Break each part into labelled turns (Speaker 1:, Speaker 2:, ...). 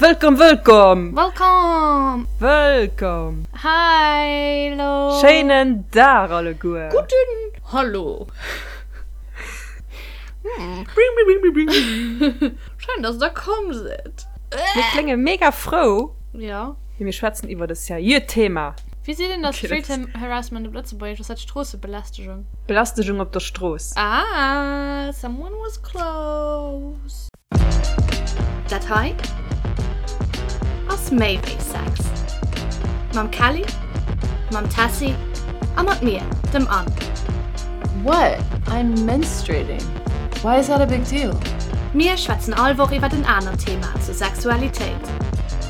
Speaker 1: Wëllkomm, wëllkomm!
Speaker 2: Wëllkomm!
Speaker 1: Wëllkomm!
Speaker 2: Hallo!
Speaker 1: Schéinen Dag alleguer!
Speaker 2: Gudden Hallo! Schéin, dass der komm sidd!
Speaker 1: Mir klénge mega frou.
Speaker 2: Jo.
Speaker 1: Mee mir schwätzen iwwert e seriöt Thema.
Speaker 2: Wéi seet een da Street Harassment op Lëtzebuergesch? Ass dat Stroossebelästegung?
Speaker 1: Belästegung op der Strooss.
Speaker 2: Ah, someone was close. Dat hei ass méi wéi Sex. Mam Kelly, mam Tessy a mat mir, dem Anne.
Speaker 3: What? I'm menstruating. Why is that a big deal?
Speaker 2: Mir schwätzen all Woch iwwert en anert Thema zur Sexualitéit.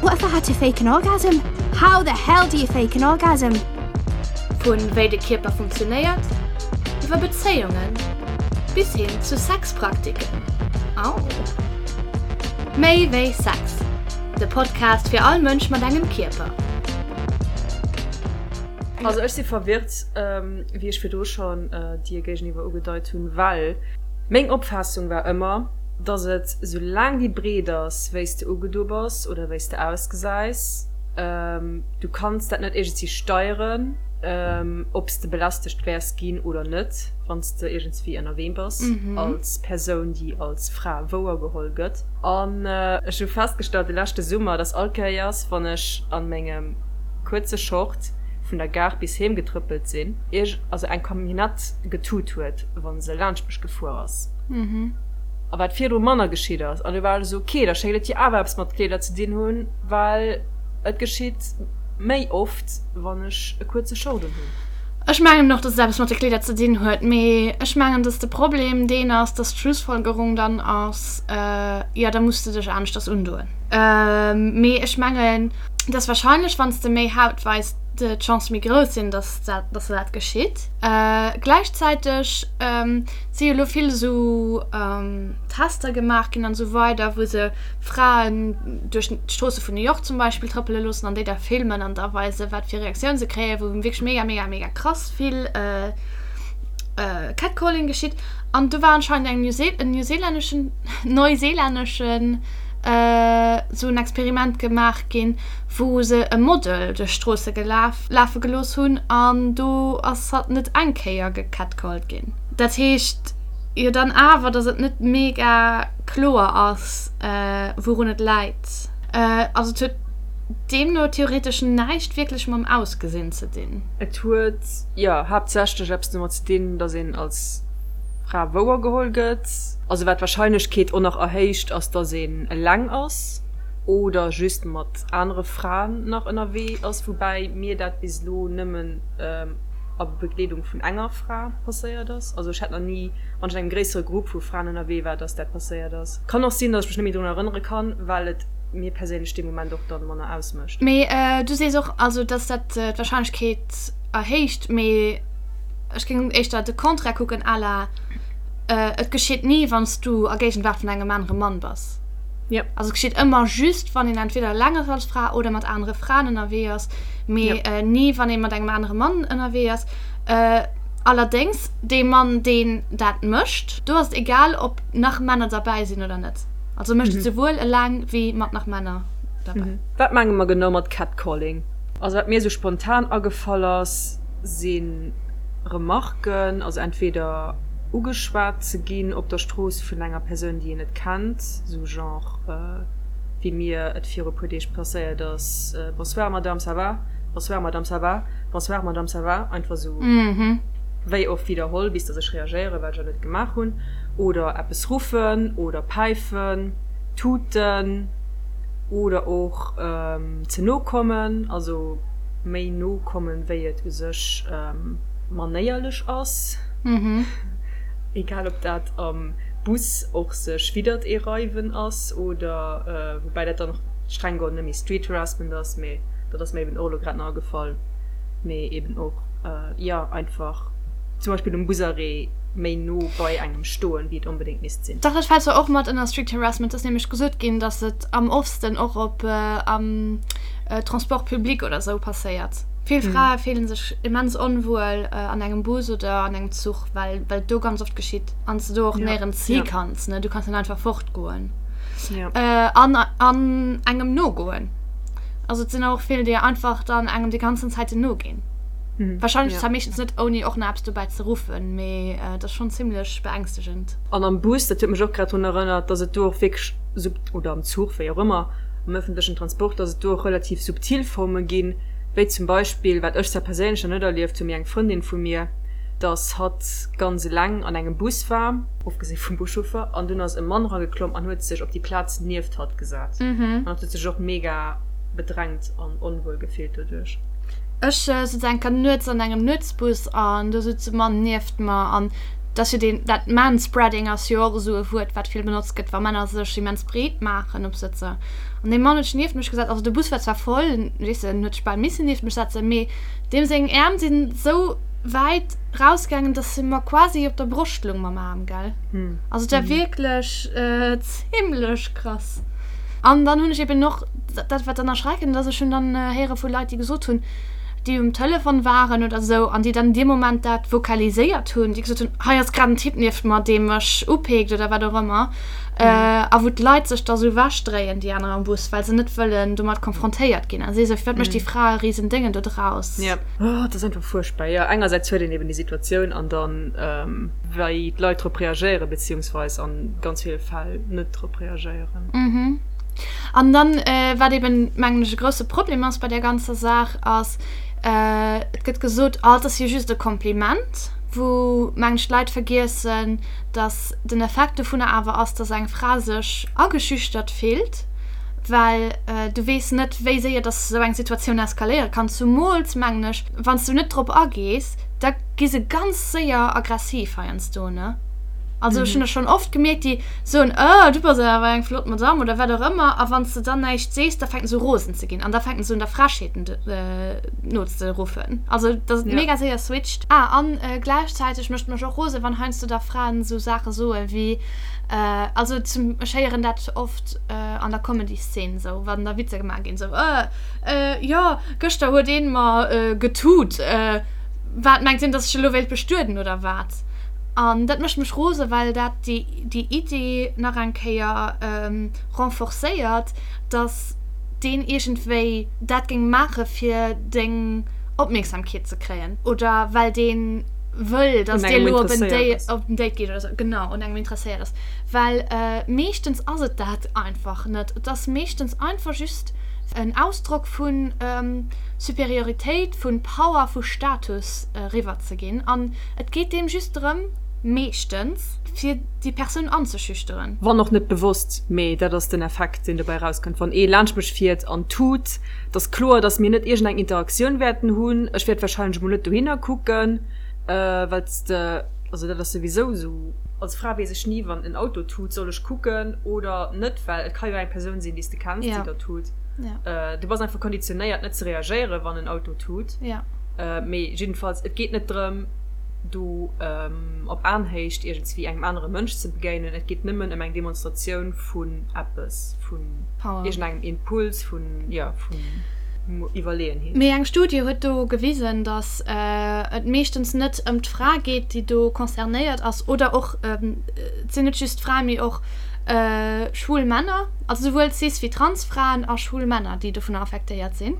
Speaker 4: What if I had to fake an orgasm? How the hell do you fake an orgasm?
Speaker 2: Vu wéi de Kierper funktionéiert, iwwer Bezéiungen bis hin zu Sexpraktiken. Au! Méi wéi Sex, de Podcast fir all Mënsch mat engem Kierper.
Speaker 1: Also ech si verwirrt, wéi ech virdru schonn dir géigeniwwer ugedeit hunn, well meng Opfaassung war ëmmer, dass et, soulaang déi breet ass, wéi s de ugedo bass oder wéi s de ausgesäis, du kanns dat net iergendwéi steieren, ob s de belästegt wäers ginn oder net, wann s de iergendswéi ënnerwee bass als Persoun, déi als Fra wouergeholl gëtt. An ech hu festgestallt de leschte Summer, dass all Kéiers, wann ech a mengem kuerze Short vun der Gare bis heem getrëppelt sinn, ierg also eng Camionnette getut huet, wa se laanscht mech gefuer ass. A wat virdru manner geschitt ass. An du war ech esou, ok, da schéngt et jo awer eppes mat Kleeder ze dinn hunn, well et geschitt méi oft, wann ech e kuerze Short un hunn.
Speaker 2: Ech mengen och, dass et eppes mat de Kleeder ze dinn huet, mee ech mengen, dass de Problem deen ass, dass d'Schlussfolgerung dann ass, jo, da muss de dech aneschters undoen. Mee ech mengen, dass wahrscheinlech, wann s de méi Haut weis, d'Chance méi grouss sinn, dass dat, dass dat geschitt. Gläichzäiteg si jo elo vill esou Tester gemaach ginn an esou weider, wou se Fraen duerch d'Stroosse vun New York zum Beispill trëppele loossen an déi da filmen an da weisen, wat fir Reaktioun se kréien, wou wierklech mega, mega, mega krass vill Catcalling geschitt. An do war anscheinend eng New en neuseelänneschen, neuseelänneschen esou en Experiment gemaach ginn, wou se e Model duerch d'Stroosse gelaf, lafe gelooss hunn an do ass hatt net eng Kéier gecatcalled ginn. Dat heescht jo dann awer, dass et net mega kloer ass, wourun et läit. Also et huet deemno theoretesch näischt wierklech mam Ausgesinn ze dinn.
Speaker 1: Et huet, jo, haaptsächlech eppes domat ze dinn, dass een als Fra wouergeholl gëtt. Also wat d'Warscheinlechkeet och nach erhéicht, ass, dass een eleng ass oder just mat anere Fraen nach ënnerwee ass, woubäi mir dat bis elo nëmmen a Begleedung vun enger Fra passéiert ass. Also ech hat nach ni, wann ech an engem gréissere Grupp vu Fraen ënnerwee war, dass dat passéiert ass. Kann och sinn, dass ech mech net méi drun erënnere kann, well et mir perséinlech dee Moment och dann manner ausmécht.
Speaker 2: Mee du sees och, also dass dat d'Warscheinlechkeet erhéicht, mee ech géing éischter de Contraire kucken, à la et geschitt ni, wann s du a Géigenwaart vun engem anere Mann bass.
Speaker 1: Ja.
Speaker 2: Also et geschitt ëmmer just, wann een entweder eleng ass als Fra oder mat anere Fraen ënnerwee ass, mee
Speaker 1: Ja.
Speaker 2: ni, wann ee mat engem anere Mann ënnerwee ass. Allerdéngs, dee Mann, deen dat mécht, do ass et egal, ob nach Männer derbäi sinn oder net. Also mécht et souwuel eleng wéi mat nach Männer derbäi.
Speaker 1: Wat menge mer genau mat Catcalling? Also wat mir esou spontan agefall ass, si Remarken, also entweder ugeschwat ze ginn op der Strooss vun enger Persoun, déi een net kennt, esou genre wéi mir et viru puer Deeg passéiert ass, Bonsoir Madame, ça va? Bonsoir Madame, ça va? Bonsoir Madame, ça va? Einfach esou wéi oft widderholl, bis datt ech reagéieren, wat ech awer net gemaach hunn. Oder eppes ruffen oder päifen, tuten oder och ze no kommen, also méi no kommen, wéi et u sech manéierlech ass. Egal ob dat am Bus och sech widdert ee reiwen ass oder, woubäi dat dann och streng geholl net méi Street Harassment ass, mee dat ass mir eben och elo grad nach agefall, mee eben och, jo, einfach zum Beispill um Busarrêt méi no bei engem stoen, wéi et onbedéngt misst sinn.
Speaker 2: Dach, dat fält zwar och mat ënner Street Harassment. Et ass nämlech gesot ginn, datt et am oftsten och op am Transport public oder esou passéiert. Vill Frae fillen sech immens onwuel an engem Bus oder an engem Zuch, well well et do ganz oft geschitt an s de do och néierens hi kanns, ne? Du kanns net einfach fortgoen. An an engem nogoen. Also et sinn och vill, déi einfach dann engem déi ganzen Zäiten noginn. Wahrscheinlech zwar meeschtens net ouni och nach eppes dobäi ze ruffen, mee et ass schonn zimmlech beängstegend.
Speaker 1: An am Bus, dat huet mech och grad drun erënnert, dass et do och wierklech sub, oder am Zuch, wéi och ëmmer, am ëffentlechen Transport, dass et do och relativ subtil Forme ginn, wéi zum Beispill, wat ech zwar perséinlech nach net erlieft hunn, mee eng Frëndin vu mir, dass hatt ganz eleng an engem Bus war, ofgesi vum Buschauffer, an dunn ass e Mann erageklomm an huet sech op déi Plaz nieft hatt gesat. An hatt huet sech och mega bedrängt an onwuel gefillt doduerch.
Speaker 2: Ech sutz eng Kéier nuets an engem Nuetsbus an do sutz e Mann nieft mer an dat ass jo deen, dat Manspreading ass jo och esou e Wuert wat vill benotzt gëtt wa Männer sech immens breet maachen op Sëtzer. An dee Mann huet sech nieft mech gesat, also de Bus war zwar voll, weess de, en huet sech bal missen nieft mech setzen, mee deem seng Äerm sinn esou wäit rausgaangen, dass se mer quasi op der Broscht lung mam Aarm, gell. Also et war wierklech zimlech krass. An dann hunn ech eben och, dat wat dann erschreckend ass, ech hunn dann héiere vu Leit, déi gesot hunn, déi um Telefon waren oder esou an déi dann an deem Moment dat vokaliséiert hunn, déi gesot hunn, hei ass grad en Typ nieft mer, dee mech upeekt oder wat och ëmmer. A wou d'Leit sech da sou ewechdréien, déi aner am Bus, well se net wëllen domat konfrontéiert ginn. A si esou, firwat mécht déi Fra e risen Déngen do draus?
Speaker 1: Oh, et ass einfach fuerchtbar. Jo, engersäits huet een eben déi Situatioun an dann, wéi d'Leit drop reagéieren, beziehungsweis an ganz ville Fäll net drop reagéieren.
Speaker 2: An dann, wat eben, mengen ech, e grousse Problem ass bei där ganzer Saach, ass, et gëtt gesot, oh, et ass jo just e Kompliment, wou, mengen ech, d'Leit vergiessen, dass den Effekt dovunner awer ass, dass eng Fra sech ageschüchtert fillt, well du weess net, wéi séier dass esou eng Situatioun eskaléiere kann. Zumools, mengen ech, wann s du net drop agees, da gi se ganz séier aggressiv heiansdo, ne? Also ech hunn dat schonn oft gemierkt, déi soen, Oh, du bass awer eng flott Madamm oder wat och ëmmer, a wann s de dann näischt sees, da fänken se u rosen ze ginn an da fänken se un der Frechheeten nozeruffen. Also dass et mega séier switcht. Ah, an gläichzäiteg mécht mech och rosen, wann heiansdo da Fraen esou Saache soe wéi, also zum, ech héieren dat oft an der Comedy-Szene esou, wann da Witzer gemaach ginn, esou, Jo, gëschter huet een mer getut, wat mengt deen, dass ech elo wéilt bestueden oder wat? An dat mécht mech rosen, well dat déi Idee nach eng Kéier renforcéiert, dass deen iergendwéi dat géing maache fir deng Opmierksamkeet ze kréien oder well dee wëll, dass dir elo op en Date gitt oder sou. Genau, un engem interesséiert ass. Well meeschtens ass et dat einfach net. Et ass meeschtens einfach just en Ausdrock vu Superioritéit, vu Power, vu Status eriwwer ze ginn. An et geet deem just drëm, meeschtens, fir déi Persoun anzeschüchteren.
Speaker 1: Wann och net bewosst, mee dat ass den Effekt, deen dobäi erauskënnt, wann ee laanscht mech fiert an tut. Et ass kloer, dass mir net iergendeng Interaktioun wäerten hunn. Ech wäert warscheinlech emol net dohinner kucken, well s de, also dat ass souwisou esou, als Fra weess ech ni, wann en Auto tut, soll ech kucken oder net, well et ka jo eng Persoun sinn, déi s de kenns, déi da tut. Du bass einfach konditionéiert, net ze reagéieren, wann en Auto tut. Mee jiddefalls, et geet net drëm, do op Aenhéicht iergendswéi engem anere Mënsch ze begéinen. Et geet nëmmen ëm eng Demonstratioun vun eppes, vun iergendengem Impuls, vun, jo, vun Iwwerleeënheet.
Speaker 2: Mee eng Studie huet do gewisen, datt et meeschtens net ëm d'Fra geet, déi do concernéiert ass, oder och, et sinn net just Fraen, mee och schwul Männer, also souwuel cis wéi trans Fraen a schwul Männer, déi dovunner affektéiert sinn.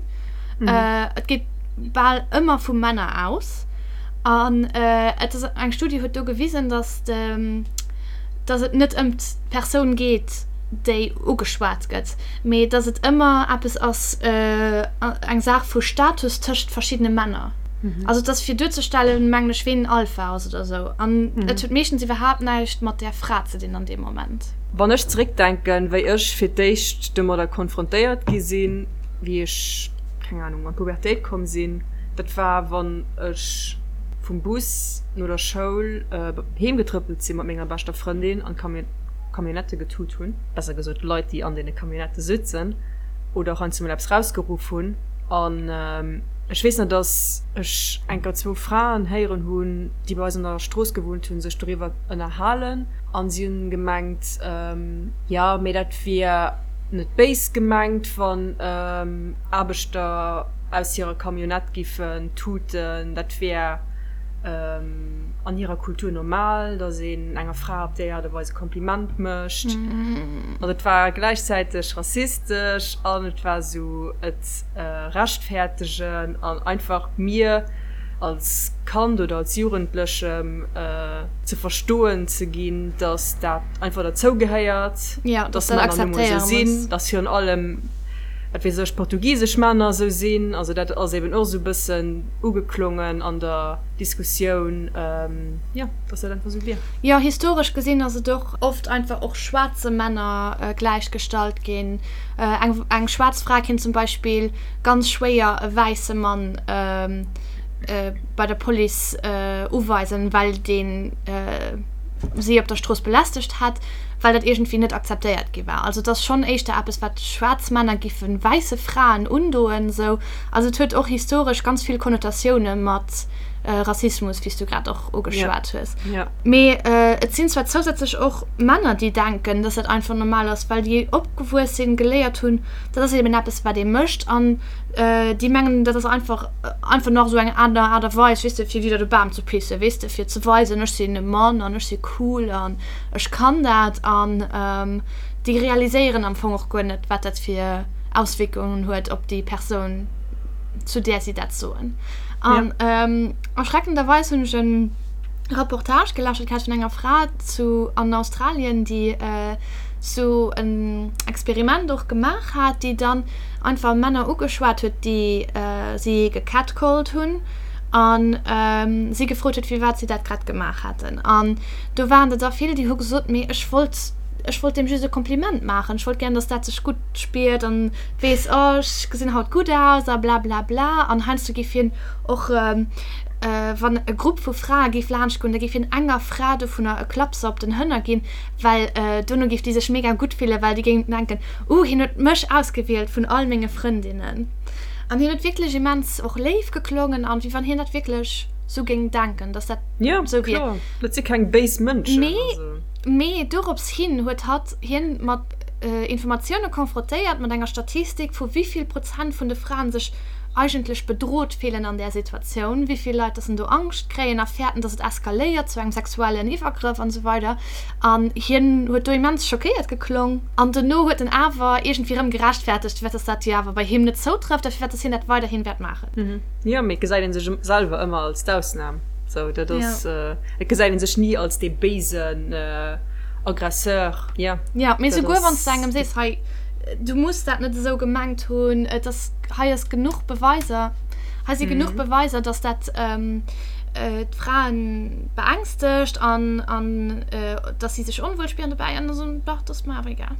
Speaker 2: Et geet bal ëmmer vu Männer aus. An et ass eng Studie huet do gewisen, datt de, datt et net ëm d'Persoun geet, déi ugeschwat gëtt, mee datt et ëmmer eppes ass, eng Saach vu Status tëscht verschiddene Männer. Also et ass fir duerzestellen, mengen ech, ween Alpha ass oder esou. An et huet meeschtens iwwerhaapt näischt mat där Fra ze dinn an deem Moment.
Speaker 1: Wann ech zeréckdenken, wéi ech fir d'éischt domadder konfrontéiert gi sinn, wéi ech, keng Ahnung, an d'Pubertéit komm sinn, Dat war wann ech vum Bus no der Schoul heem getrëppelt sinn mat menger beschter Frëndin an d'Camionnette getut hunn, besser gesot d'Leit déi an deene Camionnette sutzen oder och heiansdo mol eppes rausgeruff hunn. An ech weess nach, dass ech enker zwou Fraen héieren hunn, déi bei eis an der Strooss gewunnt hunn, sech doriwwer ënnerhalen an si hunn gemengt, jo mee dat wier net béis gemengt, wann Aarbechter aus hirer Camionnette giffen tuten, dat wär. an hirer Kultur normal, datt een enger Fra op déi Aart a Weis e Kompliment mécht. Also et war gläichzäiteg rassistesch an et war esou et rechtfäertegen an einfach mir als Kand oder als Jugendlechem ze verstoen ze ginn, datt dat einfach derzou gehéiert, datt Männer nu mol esou sinn, datt virun allem, wat weess ech, portugisesch Männer esou sinn. Also dat ass eben och esou e bëssen ugeklongen an der Diskussioun, jo, dass dat einfach esou wier.
Speaker 2: Jo, historesch gesinn ass et och oft einfach och schwaarze Männer gläichgestallt ginn. Eng, eng schwaarz Fra kéint zum Beispill ganz schwéier e wäisse Mann bei der Police uweisen, well deen si op der Strooss belästegt hätt, well dat iergendwéi net akzeptéiert gi war. Also et ass schonn éischter eppes, wat schwaarz Männer giffe wäisse Fraen undoen, esou. Also et huet och historesch ganz vill Konnotatioune mat Rassismus, wéi s du grad och ugeschwat hues. Mee et sinn zwar zousätzlech och Männer, déi denken, dass dat einfach normal ass, well déi opgewuess sinn, geléiert hunn, dat ass eben eppes, wat ee mécht. An déi mengen, dat ass einfach einfach nach esou eng aner Aart a Weis, weess de, fir widder de Bam ze pissen, weess de, fir ze weisen, ech sinn e Mann an ech si cool an ech kann dat. An déi realiséieren am Fong och guer net, wat dat fir Auswierkungen huet op déi Persoun, zu där si dat soen. An erschreckenderweis hunn ech e Reportage gelauschtert gehat vun enger Fra zu an Australien, déi sou en Experiment och gemaach hat, déi dann einfach Männer ugeschwat huet, déi si gecatcalled hunn a si gefrot huet, firwat si dat grad gemaach hätten. An do waren der da vill, déi hu gesot, mee ech wollt, ech wollt deem just e Kompliment maachen, ech wollt gären, datt dat sech gutt spiert an weess, oh ech gesinn haut gutt aus a blablabla. An heiansdo géif hien och, wann e Grupp vu Frae géif laanscht goen, da géif hien enger Fra dovunner e Klapser op den Hënner ginn, well dono géif déi sech mega gutt fillen, well déi géing denken, uh hien huet mech ausgewielt vun all menge Frëndinnen. An hien huet wierklech immens och léif geklongen an wéi wann hien dat wierklech sou géing denken, dass dat
Speaker 1: sou wier. Jo, kloer, dat si keng béis Mënschen.
Speaker 2: Mee, mee dorops hin huet hatt hien mat Informatioune konfrontéiert, mat enger Statistik vu wéi vill Prozent vun de Fraen sech eigentlech bedrot fillen an där Situatioun, wéi vill Leit dass en do Angscht kréien a fäerten, dass et eskaléiert zu engem sexuellen Iwwergrëff an esou weider. An hien huet do immens schockéiert geklong. An dono huet en awer iergendwéi erëm gerechtfertegt, firwat dass dat jo awer bei him net zoutrëfft a firwat dass hien dat weiderhin wäert maachen.
Speaker 1: Jo, mee et gesäit ee sech selwer ëmmer als d'Ausnam. Sou, dat ass, et gesäit ee sech ni als dee béisen Aggresseur.
Speaker 2: Jo, Jo, mee souguer wann s de engem sees, hei, du muss dat net esou gemengt hunn, et ass, hei ass genuch Beweiser, hei si genuch Beweiser, dass dat d'Fraen beängstegt an, an dass si sech onwuel spieren dobäi an da soen, dach, dat ass mer awer egal.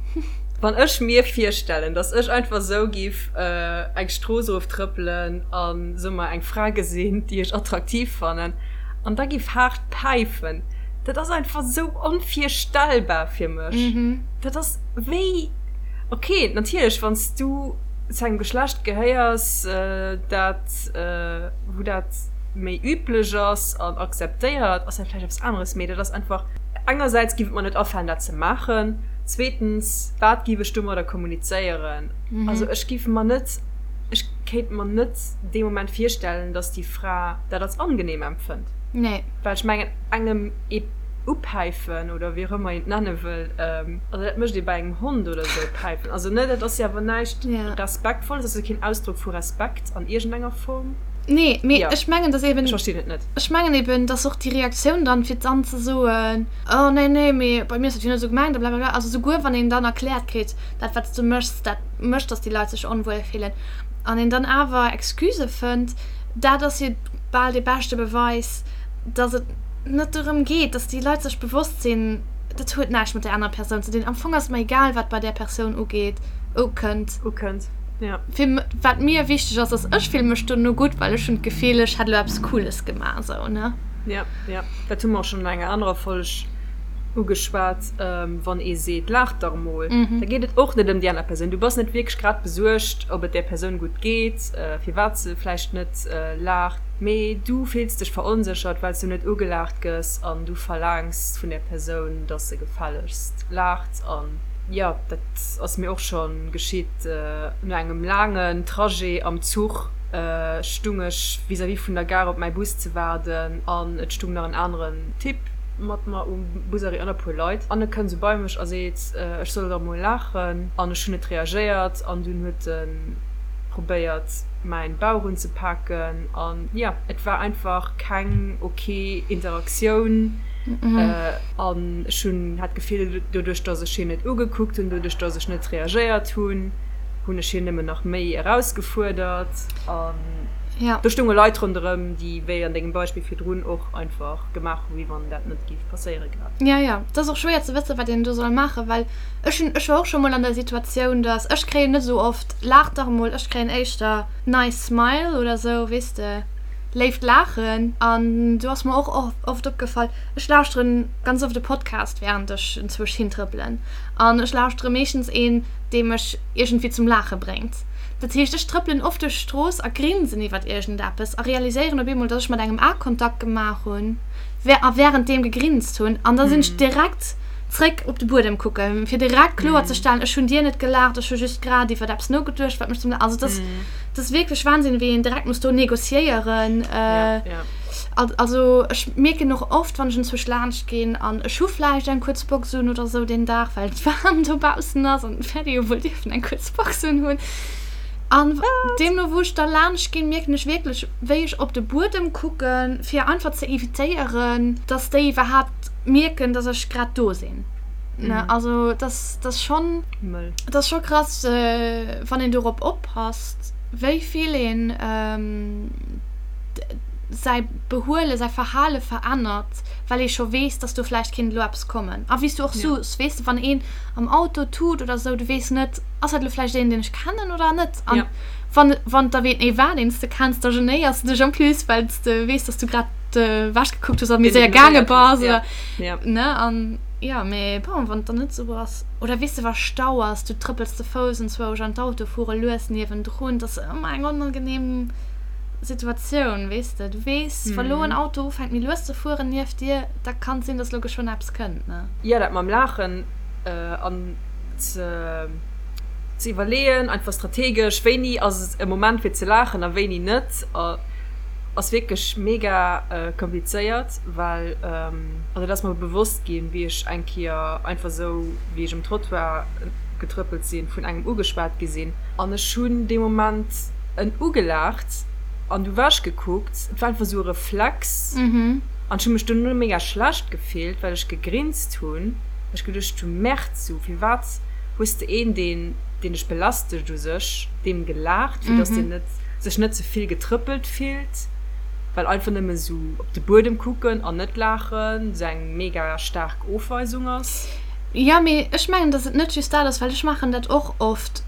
Speaker 1: Wann ech mir virstellen, dass ech einfach esou giff eng Strooss eroftrëppelen an soe mer eng Fra gesinn, déi ech attraktiv fannen, an da giff haart päifen, dat ass einfach esou onvirstellbar fir mech. Dat ass wéi, ok, natierlech wann s du zu engem Geschlecht gehéiers, dat, wou dat méi üblech ass an akzeptéiert, ass dat vläicht eppes aneres, mee dat ass einfach, engersäits giff et mer net afalen dat ze maachen, zweetens, wat giff ech domadder kommunizéieren? Also ech giff mer net, ech kéint mer net dee Moment virstellen, dass déi Fra dat als angenehm empfënnt.
Speaker 2: Nee.
Speaker 1: Well ech mengen, engem ee upäifen oder wéi och ëmmer een et nenne wëll, also dat mécht ee bei engem Hond oder esou, päifen. Also ne, dat ass jo awer näischt Respektvolles, dat ass jo keen Ausdrock vu Respekt an iergendenger Form.
Speaker 2: Nee, mee ech mengen, dass eben.
Speaker 1: Ech verstinn et net.
Speaker 2: Ech mengen eben, dass och déi Reaktioun dann, fir dann ze soen, oh nee, nee, mee bei mir ass dat jo net esou gemengt a blablabla, also souguer wann een dann erkläert kritt, dat wat s du méchs, dat mécht, dass déi Leit sech onwuel fillen, an een dann awer Excusë fënnt, dat ass jo bal dee beschte Beweis, dass et net dorëm geet, dass déi Leit sech bewosst sinn, dat huet näischt mat där anerer Persoun ze dinn. Am Fong ass et mer egal, wat bei där Persoun ugeet, ukënnt.
Speaker 1: Ukënnt, ja.
Speaker 2: Fir wat mir wichteg ass, ass, ech fille mech dono gutt, well ech hunn d'Gefill, ech hätt elo eppes Cooles gemaach, esou, ne?
Speaker 1: Ja, ja. Dat hu mer och schonn an enger anerer Folg ugeschwat, wann ee seet, Laach dach emol, da geet et och net ëm déi aner Persoun. Du bass net wierklech grad besuergt, ob et där Persoun gutt geet, firwat se vläicht net laacht, mee du fills dech veronséchert, well s du net ugelaacht gëss an du verlaangs vun där Persoun, dass se gefällegst laacht. An jo, dat ass mir och scho geschitt, no engem laangen Trajet am Zuch. stung ech vis-à-vis vun der Gare op mäi Bus ze waarden an et stung nach en aneren Typ mat mer um Busarrêt an e puer Leit an e kënnt esou bei mech a seet, ech soll dach mol laachen an ech hunn net reagéiert an dunn huet e probéiert mäin Bauch unzepaken an jo, et war einfach keng ok Interaktioun an ech hunn hat d'Gefill doduerch dass ech hien net ugekuckt hunn, doduerch dass ech net reagéiert hunn, hunn ech hien nëmmen nach méi erausgefuerdert an do stounge Leit ronderëm, déi wéi an dengem Beispill virdrun och einfach gemaach hu wéi wann dat net géif passéiere grad.
Speaker 2: Jo, jo, et ass och schwéier ze wëssen, wat een do soll maachen, well ech hunn, ech war och scho mol an der Situatioun, dass, ech kréien net esou oft Laach dach emol, ech kréien éischter Nice smile oder esou, weess de, léift Laachen. An do ass mer och oft opgefall, ech lauschteren ganz oft e Podcast wärend ech enzwousch hintrëppelen an ech lauschtere meeschtens een, dee mech iergendwéi zum Laache bréngt. Dat heescht, ech trëppelen oft duerch d'Strooss a grinsen iwwert iergendeppes a realiséieren op eemol, dass ech mat engem Akontakt gemaach hunn a wärenddeem gegrinst hunn. An da sinn ech direkt zréck op de Buedem kucken, fir direkt kloer ze stellen, ech hunn dir net gelaacht, ech hu just grad iwwert eppes nogeduecht, wat mech zum Laachen. Also dat ass, dat ass wierklech Wahnsinn, wéi een direkt muss do negociéieren. Also ech mierken och oft, wann ech enzwousch laanscht ginn an ech hu vläicht eng kuerz Box un oder sou deen Dag, well et waarm dobaussen ass an et wäert ee jo wuel dierfen eng kuerz Box un hunn. An deemno wou ech da laanscht ginn, mierken ech wierklech, wéi ech op de Buedem kucken, fir einfach ze evitéieren, dass déi iwwerhaapt mierken, dass ech grad do sinn. Ne? Also dat ass schonn, dat ass scho krass, wann een dorop oppasst, wéi vill een säi Behuelen, säi Verhale verännert, well ee scho weess, dass do vläicht kéint elo eppes kommen. A wéi s du och soos, weess de, wann een am Auto tut oder esou, du weess net, ass dat elo vläicht een, deen ech kennen oder net? An wann, wann et da ween ee war, deen s de kenns, da genéiers de dech en plus, well s de weess, dass du grad ewech gekuckt hues a méi séier gaange bass oder, ne? An jo, mee bon, wann et dann net esou ass, oder weess de, wa Stau ass, du trëppels ze Fouss enzwousch an d'Auto fuere lues niewendrun, dat ass ëmmer eng onangenehm Situatioun, weess de. Du weess, wa lo en Auto ufänkt méi lues ze fueren nieft dir, da kann et sinn, dass lo geschwënn eppes kënnt, ne?
Speaker 1: Jo, dat mam Laachen an ze iwwerleeën, einfach strategesch, wéini ass et e Moment fir ze laachen a wéini net, ass wierklech mega komplizéiert, well, also dat ass mer bewosst ginn, wéi ech eng Kéier einfach esou, wéi ech um Trottoir getrëppelt sinn, vun engem ugeschwat gi sinn an ech hunn dee Moment en ugelaacht an du ewech gekuckt. Et war einfach esou e Reflex an ech hu mech dono mega schlecht gefillt, well ech gegrinst hunn, well ech geduecht hunn, Merde, sou firwat hues de een, deen deen dech belästegt u sech, deem gelaacht, fir dass deen net sech net ze vill getrëppelt fillt, well einfach nëmme sou op de Buedem kucken an net laachen sou eng mega staark Ofweisung ass.
Speaker 2: Jo, mee ech mengen, dass et net just dat ass, well ech maachen dat och oft.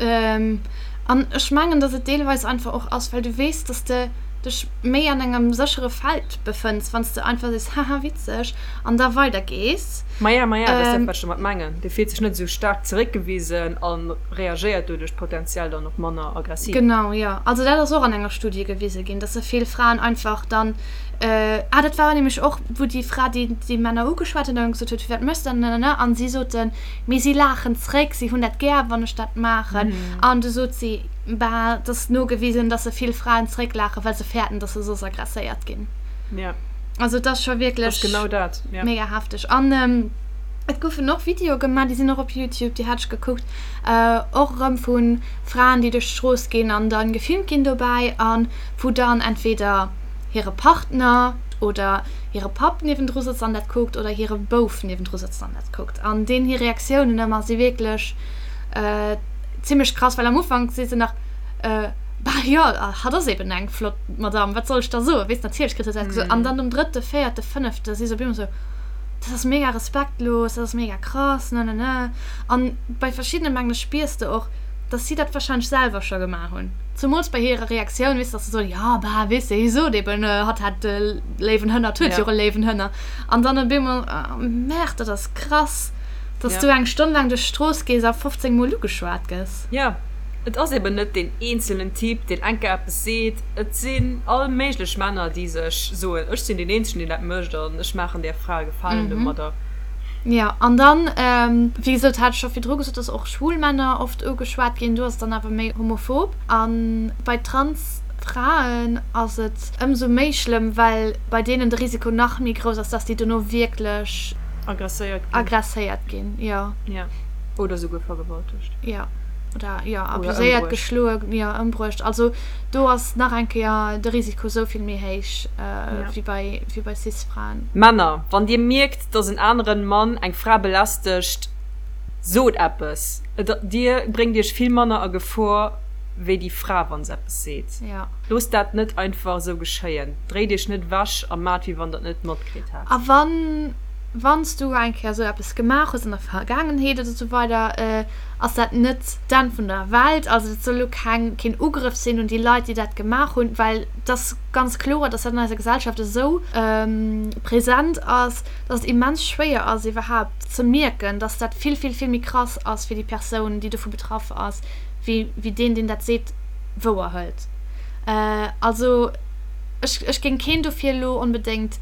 Speaker 2: An ech mengen, dass et deelweis einfach och ass, well du weess, dass de dech méi an engem séchere Feld befënns, wann s de einfach sees, haha, witzeg, an da weidergees.
Speaker 1: Maja, maja, dat ass dat, wat ech domat mengen. Dee fillt sech net esou staark zeréckgewisen a reagéiert doduerch potenziell dann och manner aggressiv.
Speaker 2: Genau, jo. Also dat ass och an enger Studie gewise ginn, dass vill Fraen einfach dann, ah, dat war nämlech och, wou déi Fra déi déi Männer ugeschwat huet an gesot huet, firwat méchs de dat, nanana, an si soten, Mee si laachen zréck, si hunn dat gär, wann ech dat maachen. An du sot si, Bah, et ass nogewisen, dass se vill Fraen zrécklaachen, well se fäerten, dass se soss aggresséiert ginn.
Speaker 1: Ja.
Speaker 2: Also et ass scho wierklech
Speaker 1: genau dat,
Speaker 2: ja. mega hefteg. An et goufen och Videoe gemaach, déi sinn och op Youtube, déi hat ech gekuckt, och erëm vu Fraen, déi duerch d'Strooss ginn an da gefilmt ginn dobäi a wou dann entweder hire Partner oder hire Papp niewendru sëtzt an dat kuckt oder hire Bouf niewendru sëtzt an dat kuckt. An deenen hir Reaktiounen ëmmer si wierklech zimmlech krass, well am Ufank si se nach, Bah jo, hatt ass eben eng flott Madamm, wat soll ech da soen, weess, natierlech kritt hatt dat gesot. An dann nom drëtte, véierte, fënnefte si se op eemol esou, Dat ass mega respektlos, dat ass mega krass, ne ne ne. An bei verschiddene mengen ech spiers de och, dass si dat warscheinlech selwer scho gemaach hunn. Zemools bei hirer Reaktioun, weess de, dass se soen, jo, bah, weess de, hie sot eben, hatt hätt e léiwen Hënner, et huet jo och e léiwen Hënner. An dann op eemol, oh merde, dat ass krass, dass du eng Stonn laang duerch d'Strooss gees a 15 Mol ugeschwat gëss.
Speaker 1: Jo, et ass eben net deen eenzelnen Typ, deen eng Kéier eppes seet. Et sinn all méiglech Männer, déi sech soen, ech sinn deen eenzegen, deen dat mécht an ech maachen där Fra e Gefalen domadder.
Speaker 2: Jo, an dann, wéi gesot, hat ech scho virdru gesot, dass och schwul Männer oft ugeschwat ginn. Do ass et dann awer méi homophob. A bei Trans. Fraen ass et ëmsou méi schlëmm, well bei deenen de Risiko nach méi grouss ass, dass déi dono wierklech
Speaker 1: Agresséiert ginn.
Speaker 2: Agresséiert ginn, jo.
Speaker 1: Jo, oder souguer vergewaltegt.
Speaker 2: Jo, oder jo, abuséiert, geschloe, jo, ëmbruecht. Also do ass nach eng Kéier de Risiko sou vill méi héich wéi bei, wéi bei Cis-Fraen.
Speaker 1: Männer, wann dir mierkt, dass en aneren Mann eng Fra belästegt, sot eppes. Et, dir bréngt iech vill manner a Gefor wéi déi Fra, wa se eppes seet. Loosst dat net einfach esou geschéien. Dréit iech net ewech a maacht, wéi wann der et net matkritt hätt.
Speaker 2: A wann, wann s du eng Kéier esou eppes gemaach hues an der Vergaangenheet oder esou weider, ass dat net d'Enn vun der Welt. Also dat soll elo keng, keen Ugrëff sinn un déi Leit, déi dat gemaach hunn, well et ass ganz kloer, dass dat an eiser Gesellschaft esou present ass, dass et immens schwéier ass iwwerhaapt ze mierken, dass dat vill, vill, vill méi krass ass fir déi Persoun, déi dovu betraff ass, wéi, wéi deen, deen dat seet, wouer hëlt. Also ech, ech géing keen dofir elo onbedéngt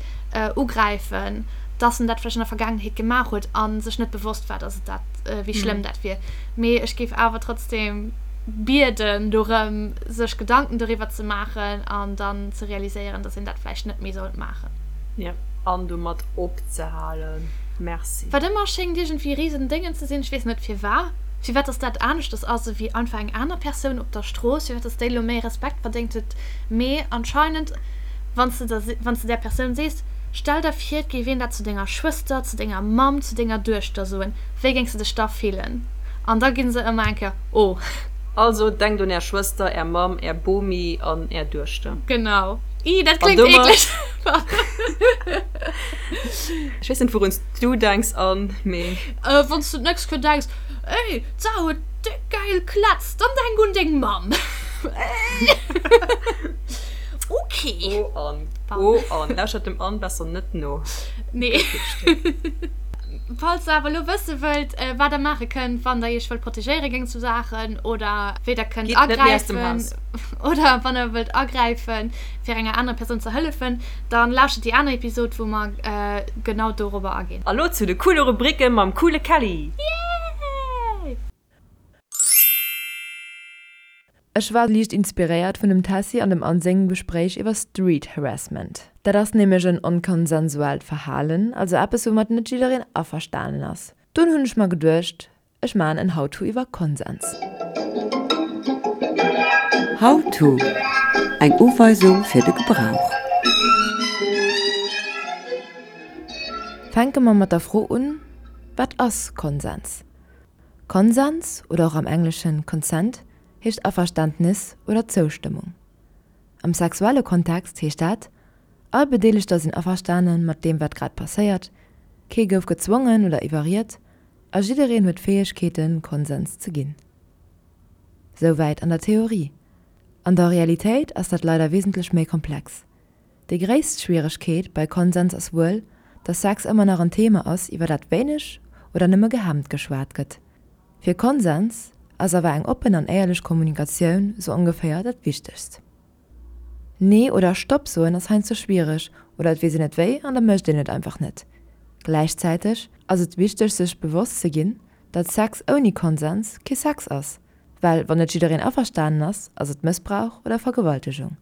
Speaker 2: ugräifen, dass en dat vläicht an der Vergaangenheet gemaach huet a sech net bewosst war, dass et dat, wéi schlëmm dat wier. Mee ech géif awer trotzdem bieden dorëm, sech Gedanken doriwwer ze maachen an dann ze realiséieren, dass een dat vläicht net méi sollt maachen.
Speaker 1: Jo, an domat opzehalen. Merci.
Speaker 2: Wat ëmmer schéngt iergendwéi risen Déngen ze sinn, ech weess net firwat, firwat dass dat aneschters ass ewéi einfach eng aner Persoun op der Strooss, firwat dass déi elo méi Respekt verdéngt huet, mee anscheinend wann s de der, wann s de där Persoun sees, stell der vir et géif een dat zu denger Schwëster, zu denger Mamm, zu denger Duechter soen, wéi géings de dech da fillen? An da gi se ëmmer eng Kéier, oh.
Speaker 1: Also denkt un är Schwëster, är Mamm, är Bomi an är Duechter.
Speaker 2: Genau. Ih, dat kléngt eekleg.
Speaker 1: Ech weess net wouruns du denks Anne, mee.
Speaker 2: Wann s du d'nächst Kéier denks, Ey, d'Sarah huet déck gäil Klätz, dann denk un deng Mamm. Ok.
Speaker 1: Oh Anne, oh Anne, lauschtert dem Anne besser net no.
Speaker 2: Nee. Falls der awer elo wësse wëllt, wat der maache kënnt, wann der iech wëllt protegéiere géint sou Saachen oder wéi der kënnt agräifen oder wann der wëllt agräifen, fir enger anerer Persoun ze hëllefen, Dann lauschtert déi aner Episode wou mer genau dorobber aginn.
Speaker 1: A lo zu de coole Rubriken mam coole Kelly!
Speaker 2: Yay!
Speaker 3: Ech war liicht inspiréiert vun dem Tessy an dem Anne sengem Gespréich iwwer Street Harassment. Dat ass nämlech en onkonsensuellt Verhalen, also eppes woumat net jiddereen averstanen ass. Dunn hunn ech mer geduecht, Ech maan en How-to iwwer Konsens.
Speaker 5: How-to, Eng Uweisung fir de Gebrauch.
Speaker 3: Fänke mer mat der Fro un, Wat ass Konsens? Konsens, oder och am Engleschen consent, heescht Averständnis oder Zoustëmmung. Am sexuelle Kontext heescht dat, All Bedeelegter sinn averstane mat deem wat grad passéiert, kee gouf gezwongen oder iwwerriet, A jiddereen huet d'Fäegkeeten, Konsens ze ginn. Souwäit an der Theorie. An der Realitéit ass dat leider wesentlech méi komplex. Déi gréisst Schwieregkeet bei Konsens ass wuel, dass Sex ëmmer nach en Thema ass, iwwer dat wéineg oder nëmme gehemmt geschwat gëtt. Fir Konsens ass awer eng oppen an éierlech Kommunikatioun sou ongeféier dat Wichtegst. Nee oder Stopp soen ass heiansdo schwiereg oder et weess een net wéi an da mécht een et einfach net. Gläichzäiteg ass et wichteg sech bewosst ze ginn, datt Sex ouni Konsens kee Sex ass, well wann net jiddereen averstanen ass, ass et Mëssbrauch oder Vergewaltegung.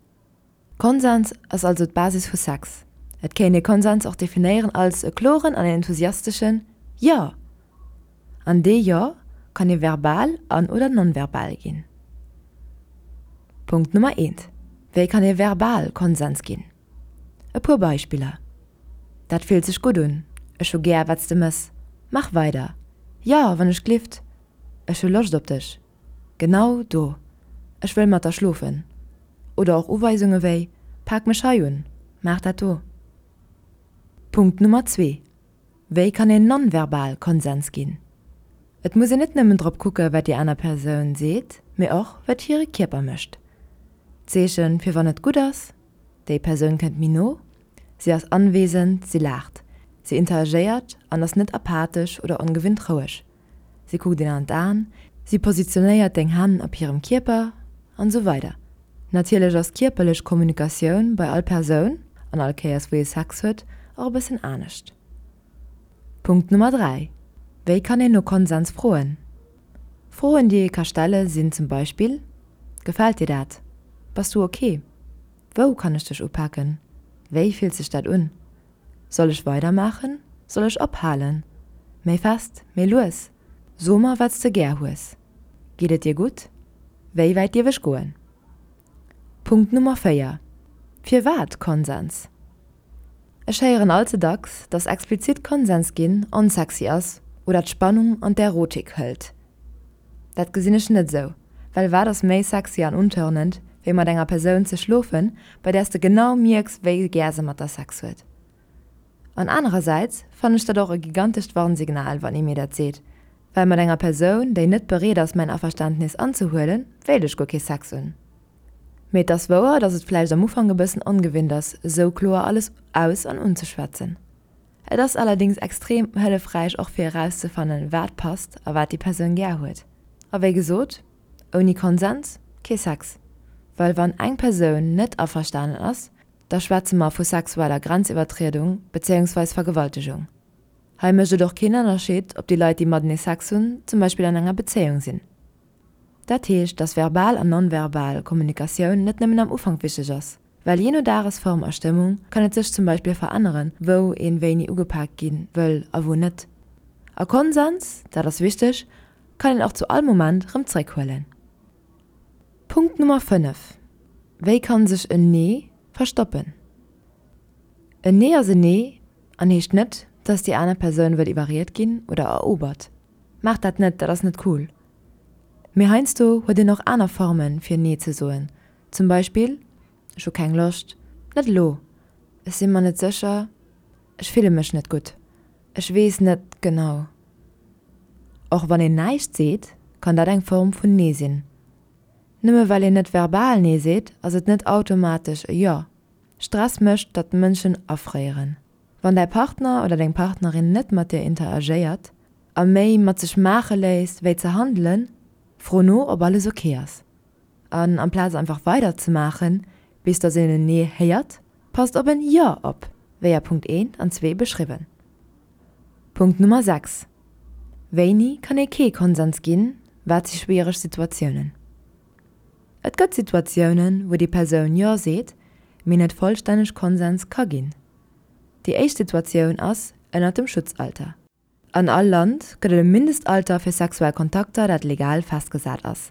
Speaker 3: Konsens ass also d'Basis vu Sex. Et kéint ee Konsens och definéieren als e kloren an enthusiasteschen Jo! An dee Jo kann ee verbal an oder non-verbal ginn. Punkt Nummer eent, Wéi kann ee verbal Konsens ginn? E puer Beispiller, Dat fillt sech gutt un, Ech hu gär, wat s de mëss, Mach weider, Jo, wann ech glift, Ech hu Loscht op dech, Genau do, Ech wëll mat der schlofen. Oder och Uweisunge wéi, Pak mech hei un, Maach dat do. Punkt Nummer zwee, Wéi kann een non-verbal Konsens ginn? Et muss een net nëmmen drop kucke wat déi aner Persoun seet, mee och wat hire Kierper mécht. D'Zeechen fir wann et gutt ass, déi Persoun kënnt méi no, si ass anwesend, si laacht, si interagéiert an ass net apathesch oder ongewinnt roueg, si kuckt een an d'Aen, si positionéiert deng Hänn op hirem Kierper an esou weider Natierlech ass kierperlech Kommunikatioun bei all Persoun, an all Kéiers wou ee Sex huet, och e bëssen anescht. Punkt Nummer 3, Wéi kann een no Konsens froen? Froen déi ee ka stelle sinn zum Beispill, Gefält dir dat? Bass du ok? Wou kann ech dech upaken? Wéi fillt sech dat un? Soll ech weidermaachen? Soll ech ophalen? Méi fest? Méi lues? So mer, wat s de gär hues. Geet et dir gutt? Wéi wäit dierf ech goen? Punkt Nummer 4, Firwat Konsens? Ech héieren all ze dacks, dass explizit Konsens ginn onsexy ass oder d'Spannung an d'Erotik hëlt. Dat gesinn ech net esou, well wat ass méi sexy an untörnend, wéi mat enger Persoun ze schlofen, bei där s de genau mierks, wéi gär se mat der Sex huet? An anerersäits fannen ech dat och e gigantescht Warnsignal, wann ee mir dat seet, well mat enger Persoun, déi net bereet ass mäin Averständnis anzehuelen, wéilt ech guer kee Sex hunn. Mee et ass wouer, dass et vläicht am Ufank e bëssen ongewinnt ass, esou kloer alles aus an unzeschwätzen. Et ass allerdings extrem hëllefräich och fir erauszefannen, wat passt a wat déi Persoun gär huet. A wéi gesot, ouni Konsens kee Sex. Well wann eng Persoun net averstanen ass, da schwätze mer vu sexueller Grenziwwertriedung bezéiungsweis Vergewaltegung. Hei mécht et och keen Ënnerscheed, ob déi Leit, déi matenee Sex hunn, zum Beispill an enger Bezéiung sinn. Dat heescht, dass verbal an non-verbal Kommunikatioun net nëmmen am Ufank wichteg ass, well jee no Dagesform a Stëmmung kann et sech zum Beispill veränneren, wou een wéini ugepaakt gi wëll a wou net. A Konsens, dat ass wichteg, kann een och zu all Moment rëm zréckhuelen. Punkt Nummer 5, Wéi kann sech en Nee verstoppen? En Nee ass en Nee an heescht net, dass déi aner Persoun wëll iwwerriet ginn oder erobert. Maacht dat net, dat ass net cool. Mee heiansdo huet een och aner Formen fir Nee ze soen, zum Beispill, Ech hu keng Loscht, net elo, ech si mer net sécher, ech fille mech net gutt, ech weess net genau. Och wann een näischt seet, kann dat eng Form vun Nee sinn. Nëmme well een net verbal Nee seet, ass et net automatesch e Jo. Stress mécht, datt Mënschen afréieren. Wann däi Partner oder deng Partnerin net mat dir interagéiert a méi mat sech maache léisst wéi ze handelen, fro no ob alles ok ass. An amplaz einfach weider ze maachen bis dass een en Nee héiert, passt op en Jo op, wéi a Punkt 1 an 2 beschriwwen. Punkt Nummer 6, Wéini kann ee kee Konsens ginn, wat si schwiereg Situatiounen? Et gëtt Situatiounen, wou déi Persoun Jo seet, mee net vollstänneg Konsens ka ginn. Déi éischt Situatioun ass ënnert dem Schutzalter. An all Land gëtt et e Mindestalter fir sexuell Kontakter, dat legal festgesat ass.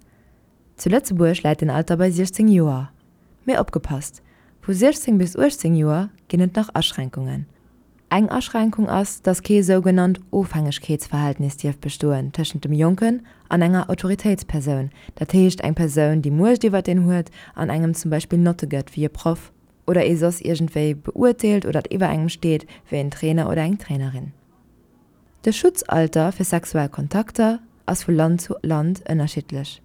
Speaker 3: Zu Lëtzebuerg läit den Alter bei 16 Joer. Mee opgepasst, Vu 16 bis 18 Joer ginn et nach Aschränkungen. Eng Aschränkung ass, dass kee sougenannt Ofhängegkeetsverhältnis dierf bestoen tëschent dem Jonken an enger Autoritéitspersoun, dat heescht eng Persoun, déi Muecht iwwert een huet an engem zum Beispill Notte gëtt wéi e Proff oder ee soss iergendwéi beurteelt oder iwwer engem steet wéi en Trainer oder eng Trainerin. De Schutzalter fir sexuell Kontakter ass vu Land zu Land ënnerschiddlech.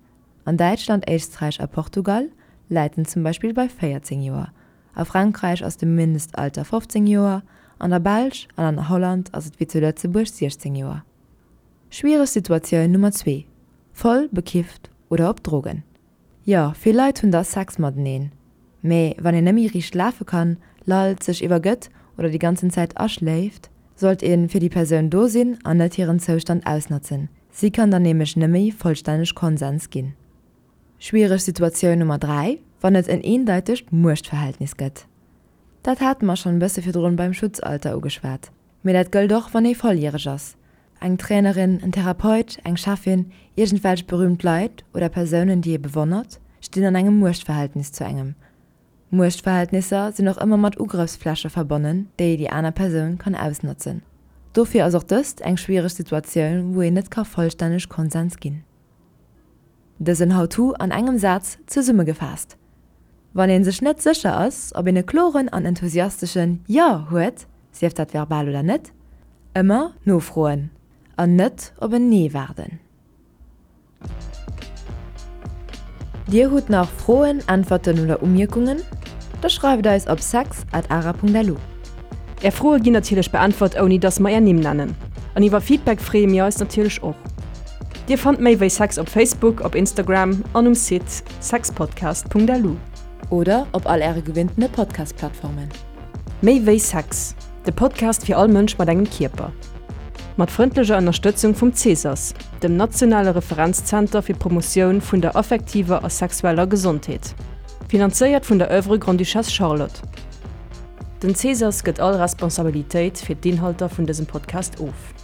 Speaker 3: An Däitschland, Éisträich a Portugal läit en zum Beispill bei 14 Joer, A Frankräich ass de Mindestalter 15 Joer, an der Belsch an an Holland ass et wéi zu Lëtzebuerg 16 Joer. Schwiereg Situatioun Nummer 2, Voll bekifft oder op Drogen. Jo, vill Leit hunn da Sex mateneen, mee wann een nëmme riicht lafe kann, lallt, sech iwwergëtt oder déi ganzen Zäit aschléift, sollt ee fir déi Persoun do sinn an net hiren Zoustand ausnotzen. Si kann dann nämlech nëmme vollstänneg Konsens ginn. Schwiereg Situatioun Nummer 3, wann et en eendeitegt Muechtverhältnis gëtt. Dat hate mer schonn e bësse virdrun beim Schutzalter ugeschwat, mee dat gëllt och wann ee volljäreg ass. Eng Trainerin, en Therapeut, eng Cheffin, iergendwelch berüümt Leit oder Persounen déi ee bewonnert, stinn an engem Muechtverhältnis zu engem. Muechtverhältnisser sinn och ëmmer mat Ugrëffsfläche verbonnen, déi déi aner Persoun kann ausnotzen. Dofir ass och dëst eng schwiereg Situatioun wou een net ka vollstänneg Konsens ginn. Dësen How-to an engem Saz zesummegefaasst, Wann een sech net sécher ass, ob een e kloren an enthusiasteschen Jo huet, sief dat verbal oder net, ëmmer nofroen an net op en Nee waarden. Dir hutt nach Froen, Äntwerten oder Umierkungen? Da schreift eis op sex at ara.lu.
Speaker 1: Är Froe ginn natierlech beäntwert ouni dass mer är Nimm nennen. An iwwer Feedback freeë mir eis natierlech och. Dir fannt méi wéi Sex op Facebook, op Instagram an um Site sexpodcast.lu.
Speaker 3: Oder op all äre gewinntene Podcast-Plattformen.
Speaker 1: Méi wéi Sex, de Podcast fir all Mënsch mat engem Kierper. Mat frëndlecher Ënnerstëtzung vum CESAS, dem nationale Referenzzenter fir d'Promotioun vun der affektiver a sexueller Gesondheet. Finanzéiert vun der Oeuvre Grande-Duchesse Charlotte. Den Cesas gëtt all Responsabilitéit fir d'Inhalter vun dësem Podcast of.